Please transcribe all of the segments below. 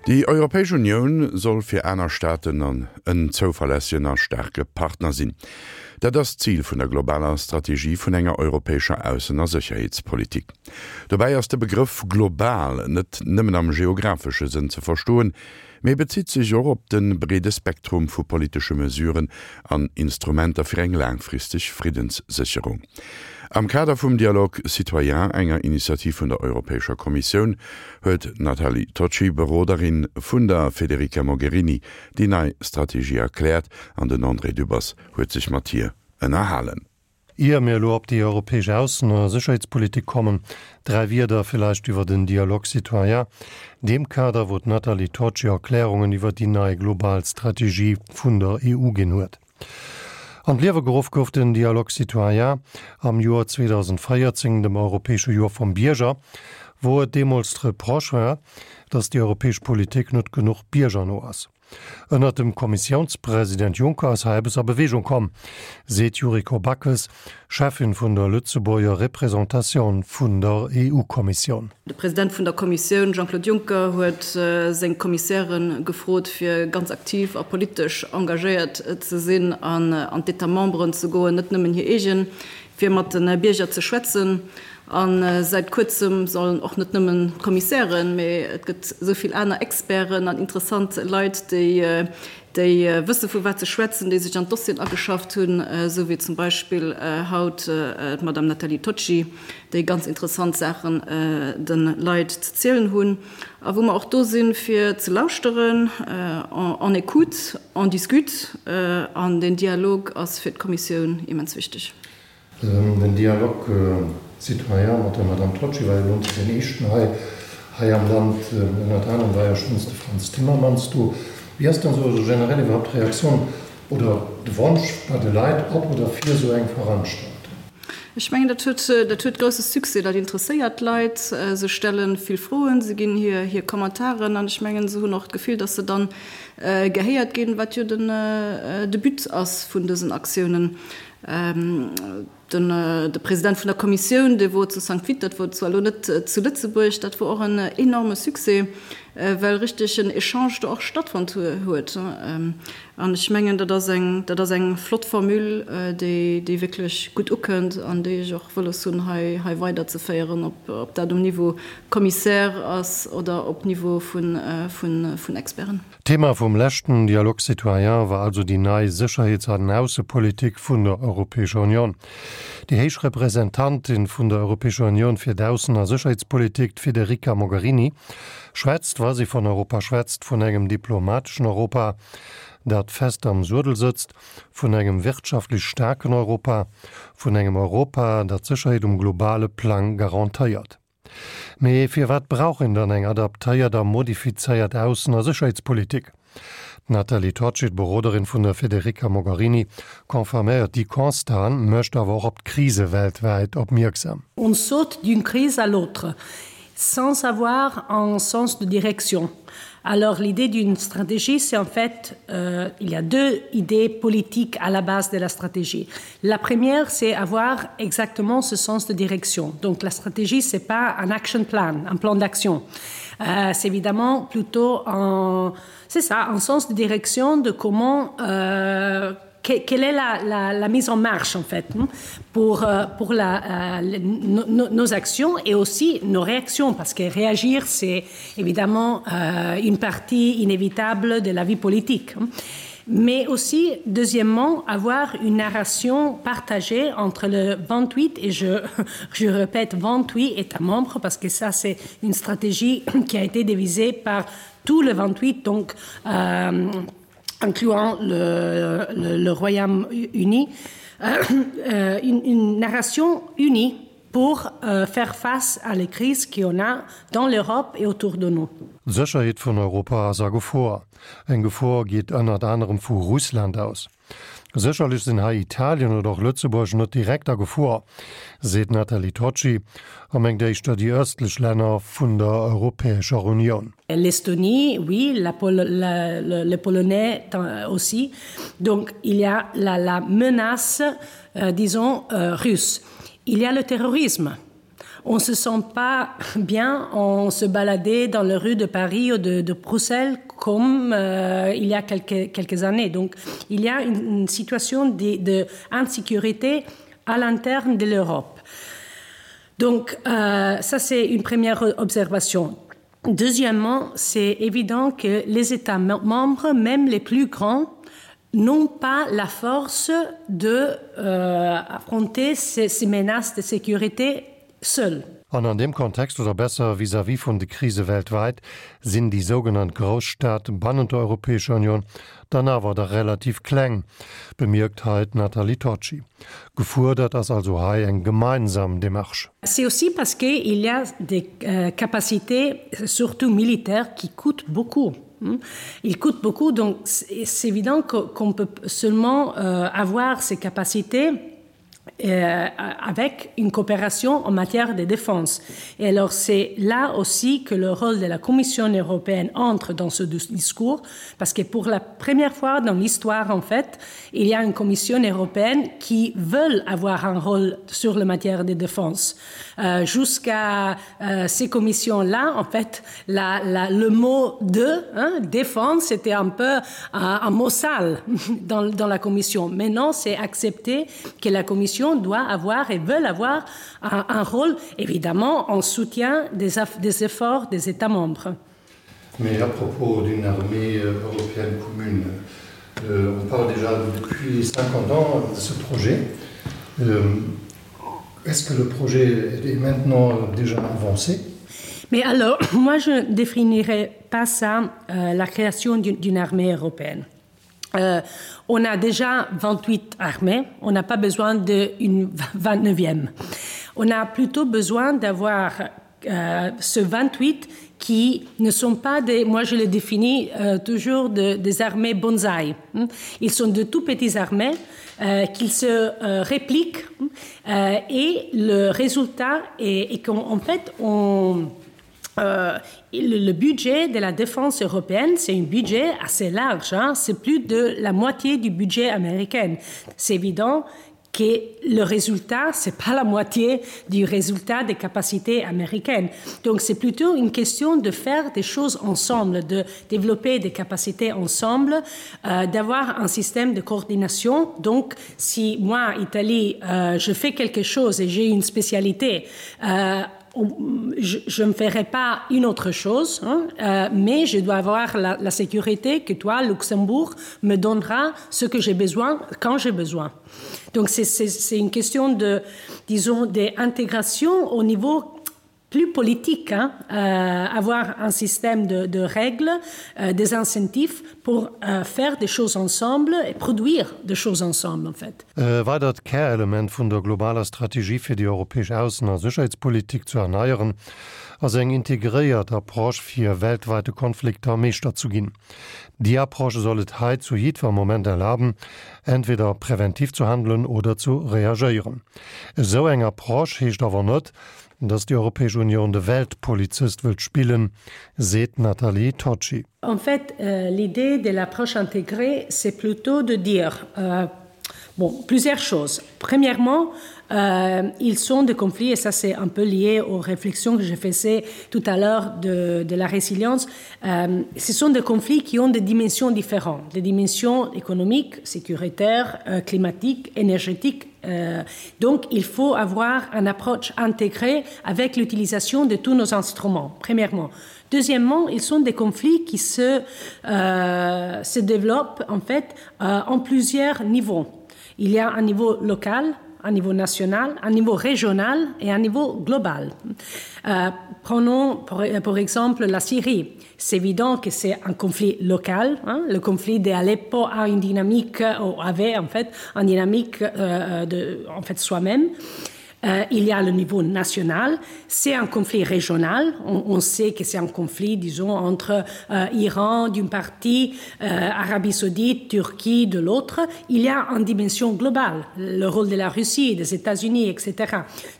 Déi Europäesch Unioun soll fir aner Staaten an en zouverlässegen a staarke Partner sinn. Dat ass d'Zil vun der globaler Strategie vun enger europäescher Aussen a Sécherheetspolitik. Dobäi ass de Begrëff global net nëmmen am geographesche Sënn ze verstoen, mee bezitt sech och op de breede Spektrum vu politesche Mesuren an Instrumenter fir eng laangfristeg Friddenssécherung. Am Kader vum Dialogue citoyen, enger Initiativ vun der Europäescher Kommissioun, huet d'Nathalie Tocci, Beroderin vun der Federica Mogherini, déi nei Strategie erkläert an den André Dübbers huet sech mat hir ënnerhalen. Ier mir elo op déi europäesch Aussen a Sécherheetspolitik kommen, dräi Wierder villäicht iwwer den Dialogue citoyen, deem Kader, wou d'Nathalie Tocci Erklärungen iwwer déi nei global Strategie vun der EU ginn huet. An d'Liewe geruff gouf den Dialogue citoyen am Joer 2014, dem europäesche Joer vum Bierger, wou et deemools d'Reproche war, datt déi europäesch Politik net genuch biergerno ass. Ënnert dem Kommissiounspresident Juncker ass hei eppes a Beweegung komm, seet d'Yuriko Backes, Cheffin vun der Lëtzebuerger Representatioun vun der EU-Kommissioun. De President vun der Kommissioun Jean-Claude Juncker huet seng Kommissäre gefrot, fir ganz aktiv a politesch engagéiert ze sinn an an d'États memberen ze goen, net nëmmen hir eegen, fir mat de Bierger ze schwätzen. A säit kuerzem sollen och net nëmmen d'Kommissären, mee et gëtt esou vill aner Experten an interessant Leit, déi déi wësse vu wat se schwätzen, déi sech an d'Dossieren ageschafft hunn, esou wéi zum Beispill haut d'Madame Nathalie Tocci, déi ganz interessant Saachen de Leit ze zielen hunn a wou mer och do sinn, fir ze lauschteren. On écoute, on discute an deen Dialog ass fir d'Kommissioun immens wichteg. Den Dialogue citoyen mat der Madame Tocci war jo elo net deen éischten hei hei am Land. Ënnert anerem war jo schonns de Frans Timmermans do. Wéi ass dann esou generell iwwerhaupt d'Reaktioun oder de Wonsch bei de Leit op oder fir esou eng Veranstaltung? Ech mengen, dat huet, dat huet grousse Succès, dat interesséiert d'Leit. Se stelle vill Froen, se ginn hir, hir Commentairen an ech mengen, se hunn och d'Gefill, datt se dann gehéiert ginn, wat jo den, de But ass vun dësen Aktiounen. De President vun der Kommissioun, dee wor zu Sankt Vith, dat wor zwar elo net zu Lëtzebuerg, dat wor och en enorme Succès, well richteg en Echange do och stattfonnt huet. An ech mengen, dat ass eng, dat ass eng flott Formule, déi, déi wierklech gutt ukënnt an déi ech och wëlles hunn, hei, hei weiderzeféieren, ob, ob dat um Niveau Commissaire ass oder op Niveau vun, vun, vun Experten. D'Thema vum leschten Dialogue citoyen war also déi nei Sécherheets an Aussepolitik vun der Europäescher Union. Déi héich Representantin vun der Europäescher Union fir d'Aussen a Sécherheetspolitik, d'Federica Mogherini, schwätzt, wa si vun Europa schwätzt, vun engem diplomateschen Europa, dat fest am Suedel sëtzt, vun engem wirtschaftlech staarken Europa, vun engem Europa, dat d'Sécherheet um globale Plang garantéiert. Mee firwat brauch een dann eng adaptéiert a modifizéiert Aussen a Sécherheetspolitik? D'Nathalie Tocci, d'Beroderin vun der Federica Mogherini, confirméiert déi Constaten, mécht awer och op d'Krise weltwäit opmierksam. On saute d'une crise à l'autre sans avoir un sens de direction. Alors l'idée d'une stratégie, c'est en fait euh, il y a deux idées politiques à la base de la stratégie. La première, c'est avoir exactement ce sens de direction. Donc la stratégie, c'est pas un action plan, un plan d'action. Euh, c'est évidemment plutôt un, c'est ça, un sens de direction de comment euh, quelle est la, la, la mise en marche en fait pour, euh, pour la, euh, nos, nos actions et aussi nos réactions parce que réagir c'est évidemment euh, une partie inévitable de la vie politique mais aussi deuxièmement avoir une narration partagée entre le 28 et je, je répète 28 États membres parce que ça c'est une stratégie qui a été dévisée par tout le 28 donc euh, incluant le, le, le Royaume-Uni, euh, euh, une, une narration unie pour euh, faire face à les crises qu'on a dans l'Europe et autour de nous. D'Sécherheet vun Europa ass a Gefor. Eng Gefor geet ënnert anerem vu Russland aus. Sécherlech sinn hei Italien oder och Lëtzebuerg net direkt a Gefor, seet d'Nathalie Tocci a mengt éischter déi ëstlech Länner vun der Europäescher Unioun. L'Estonie, oui, la Pol la, le, les Polonais aussi. Donc il y a la, la menace, euh, disons, euh, russe. Il y a le terrorisme. On se sent pas bien en se balader dans les rues de Paris ou de, de Bruxelles comme euh, il y a quelques, quelques années. Donc il y a une, une situation d'insécurité à l'interne de l'Europe. Donc euh, ça c'est une première observation. Deuxièmement, c'est évident que les États membres, même les plus grands, n'ont pas la force de euh, affronter ces, ces menaces de sécurité seuls. An an deem Kontext, oder besser vis-à-vis vun de Krise weltwäit, sinn déi sougenannt Grousstaate bannent der Europäescher Union dann awer der relativ kleng, bemierkt hei d'Nathalie Tocci. Gefuerdert ass also hei eng gemeinsam Démarche. C'est aussi parce qu'il y a des euh, capacités, surtout militaires, qui coûtent beaucoup. Ils coûtent beaucoup, donc c'est évident qu'on peut seulement euh, avoir ces capacités euh, avec une coopération en matière de défense. Et alors c'est là aussi que le rôle de la Commission européenne entre dans ce discours, parce que pour la première fois dans l'histoire en fait, il y a une Commission européenne qui veut avoir un rôle sur la matière de défense. Euh, Jusqu'à euh, ces commissions-là, en fait, la, la, le mot de hein, défense c'était un peu un, un mot sale dans, dans la Commission. Maintenant, c'est accepté que la Commission doit avoir et veut avoir un, un rôle évidemment en soutien des, des efforts des États membres. Mais à propos d'une armée euh, européenne commune, euh, on parle déjà depuis 50 ans de ce projet. Euh, Est-ce que le projet est maintenant déjà avancé? Mais alors moi je ne définirais pas ça euh, la création d'une armée européenne. Euh, on a déjà 28 armées, on n'a pas besoin d'une 29e. On a plutôt besoin d'avoir euh, ce 28 qui ne sont pas des moi je les définis euh, toujours de, des armées bonsaï. Ils sont de tout petits armées euh, qu'ils se euh, répliquent euh, et le résultat est, est qu'en fait on euh, le, le budget de la défense européenne, c'est un budget assez large, c'est plus de la moitié du budget américain. C'est évident que le résultat, c'est pas la moitié du résultat des capacités américaines. Donc c'est plutôt une question de faire des choses ensemble, de développer des capacités ensemble, euh, d'avoir un système de coordination. Donc si moi, Italie, euh, je fais quelque chose et j'ai une spécialité, euh, je, je ne ferai pas une autre chose, hein, euh, mais je dois avoir la, la sécurité que toi, Luxembourg, me donnera ce que j'ai besoin quand j'ai besoin. Donc c'est une question de, disons, d'intégration au niveau plus politique, hein, euh, avoir un système de, de règles, euh, des incentives pour euh, faire des choses ensemble et produire des choses ensemble en fait. E weidert Kärelement vun der globaler Strategie fir déi europäesch Aussen a Sécherheetspolitik ze erneieren, ass eng integréiert Approche fir weltweite Konflikter Meeschter zu ginn. Déi Approche soll et hei zu jiddwer Moment erlaben, entweder präventiv zu handelen oder zu reagéieren. Esou eng Approche heescht awer net, datt déi Europäesch Unioun de Weltpolizist wëllt spillen, seet d'Nathalie Tocci. En fait, euh, l'idée de l'approche intégrée, c'est plutôt de dire euh, bon, plusieurs choses. Premièrement, euh, ils sont des conflits, et ça c'est un peu lié aux réflexions que je faisais tout à l'heure de, de la résilience, euh, ce sont des conflits qui ont des dimensions différentes, des dimensions économiques, sécuritaires, euh, climatiques, énergétiques. Euh, donc il faut avoir une approche intégrée avec l'utilisation de tous nos instruments, premièrement. Deuxièmement, ils sont des conflits qui se, euh, se développent en fait euh, en plusieurs niveaux. Il y a un niveau local, un niveau national, un niveau régional et un niveau global. Euh, prenons pour, pour exemple la Syrie. C'est évident que c'est un conflit local. Hein? Le conflit d'Aleppo a une dynamique ou avait en fait une dynamique euh, de, en fait soi-même. Euh, il y a le niveau national, c'est un conflit régional, on, on sait que c'est un conflit disons entre euh, Iran d'une partie, euh, Arabie saoudite, Turquie de l'autre, il y a une dimension globale, le rôle de la Russie, des États-Unis, etc.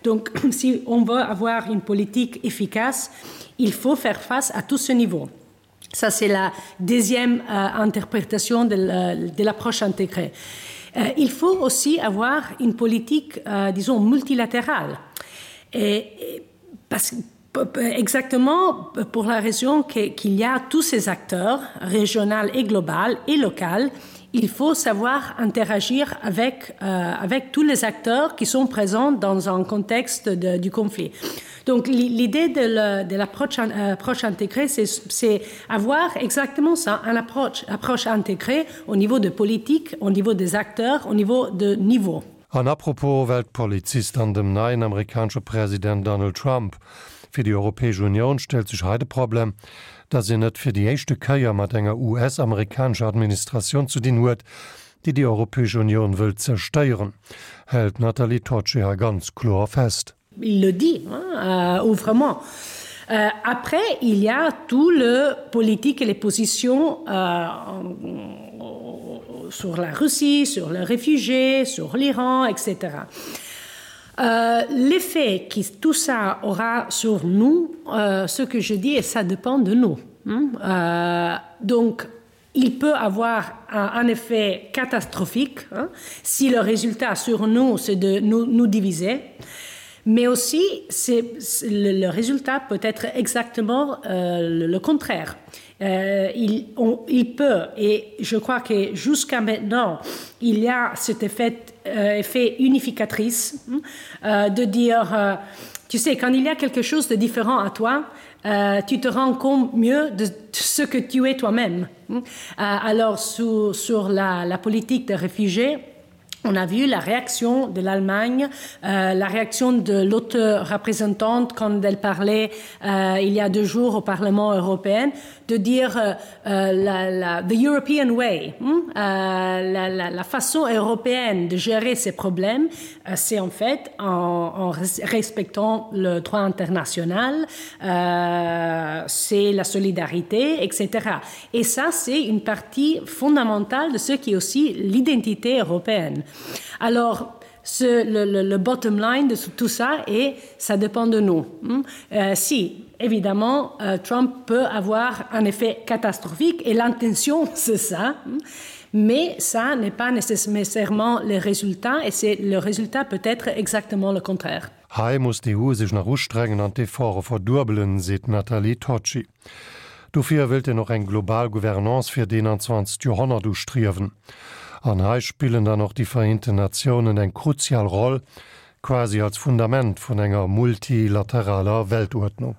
Donc si on veut avoir une politique efficace, il faut faire face à tout ce niveau. Ça c'est la deuxième euh, interprétation de l'approche intégrée. Euh, il faut aussi avoir une politique euh, disons multilatérale. Et, et. Parce exactement pour la raison qu'il y a tous ces acteurs régionaux et global et local, il faut savoir interagir avec, euh, avec tous les acteurs qui sont présents dans un contexte de, du conflit. Donc l'idée de l'approche euh, approche intégrée, c'est avoir exactement ça, une approche, approche intégrée au niveau de politique, au niveau des acteurs, au niveau de niveau. An apropos Weltpolizist an dem neien amerikanesche President Donald Trump, Fir déi Europäesch Unioun stellt sech hei de Problem, datt een et fir déi éischte Kéier mat enger US-amerikanescher Administratioun ze dinn huet, déi déi Europäesch Unioun wëllt zerstéieren, hält d'Nathalie Tocci hei ganz kloer fest. Il le dit hein, euh, ouvrement. Euh, après, il y a tout le politique et les positions euh, sur la Russie, sur les réfugiés, sur l'Iran, etc. Euh, L'effet qui tout ça aura sur nous, euh, ce que je dis, et ça dépend de nous. Hein. Euh, donc, il peut avoir un, un effet catastrophique hein, si le résultat sur nous, c'est de nous, nous diviser. Mais aussi, c'est, le, le résultat peut être exactement euh, le, le contraire. Euh, il, on, il peut, et je crois que jusqu'à maintenant, il y a cet effet, euh, effet unificatrice hein, euh, de dire, euh, tu sais, quand il y a quelque chose de différent à toi, euh, tu te rends compte mieux de ce que tu es toi-même. Euh, alors, sous, sur la, la politique des réfugiés, On a vu la réaction de l'Allemagne, euh, la réaction de l'autre représentante quand elle parlait euh, il y a deux jours au Parlement européen, de dire euh, euh, la, la, the European way, hmm, euh, la, la, la façon européenne de gérer ces problèmes, euh, c'est en fait en, en respectant le droit international, euh, c'est la solidarité, etc. Et ça, c'est une partie fondamentale de ce qui est aussi l'identité européenne. Alors, ce, le, le, le bottom line de tout ça et ça dépend de nous. Euh, si évidemment euh, Trump peut avoir un effet catastrophique et l'intention c'est ça, mais ça n'est pas nécessairement le résultat et c'est le résultat peut être exactement le contraire. Hei muss d'EU sech nach ustrengen an d'Efforte verduebelen, seet d'Nathalie Tocci. Dofir wëllt een och eng global Gouvernance fir d'21. Joerhonnert ustriewen. An hei spillen dann och déi Vereenten Natiounen eng kruzial Roll, quasi als Fundament vun enger multilateraler Weltuerdnung.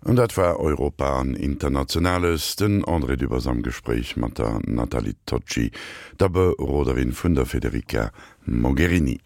An dat war Europa an Internationales. Den André Dübbers am Gespréich mat der Nathalie Tocci, der Beroderin vun der Federica Mogherini.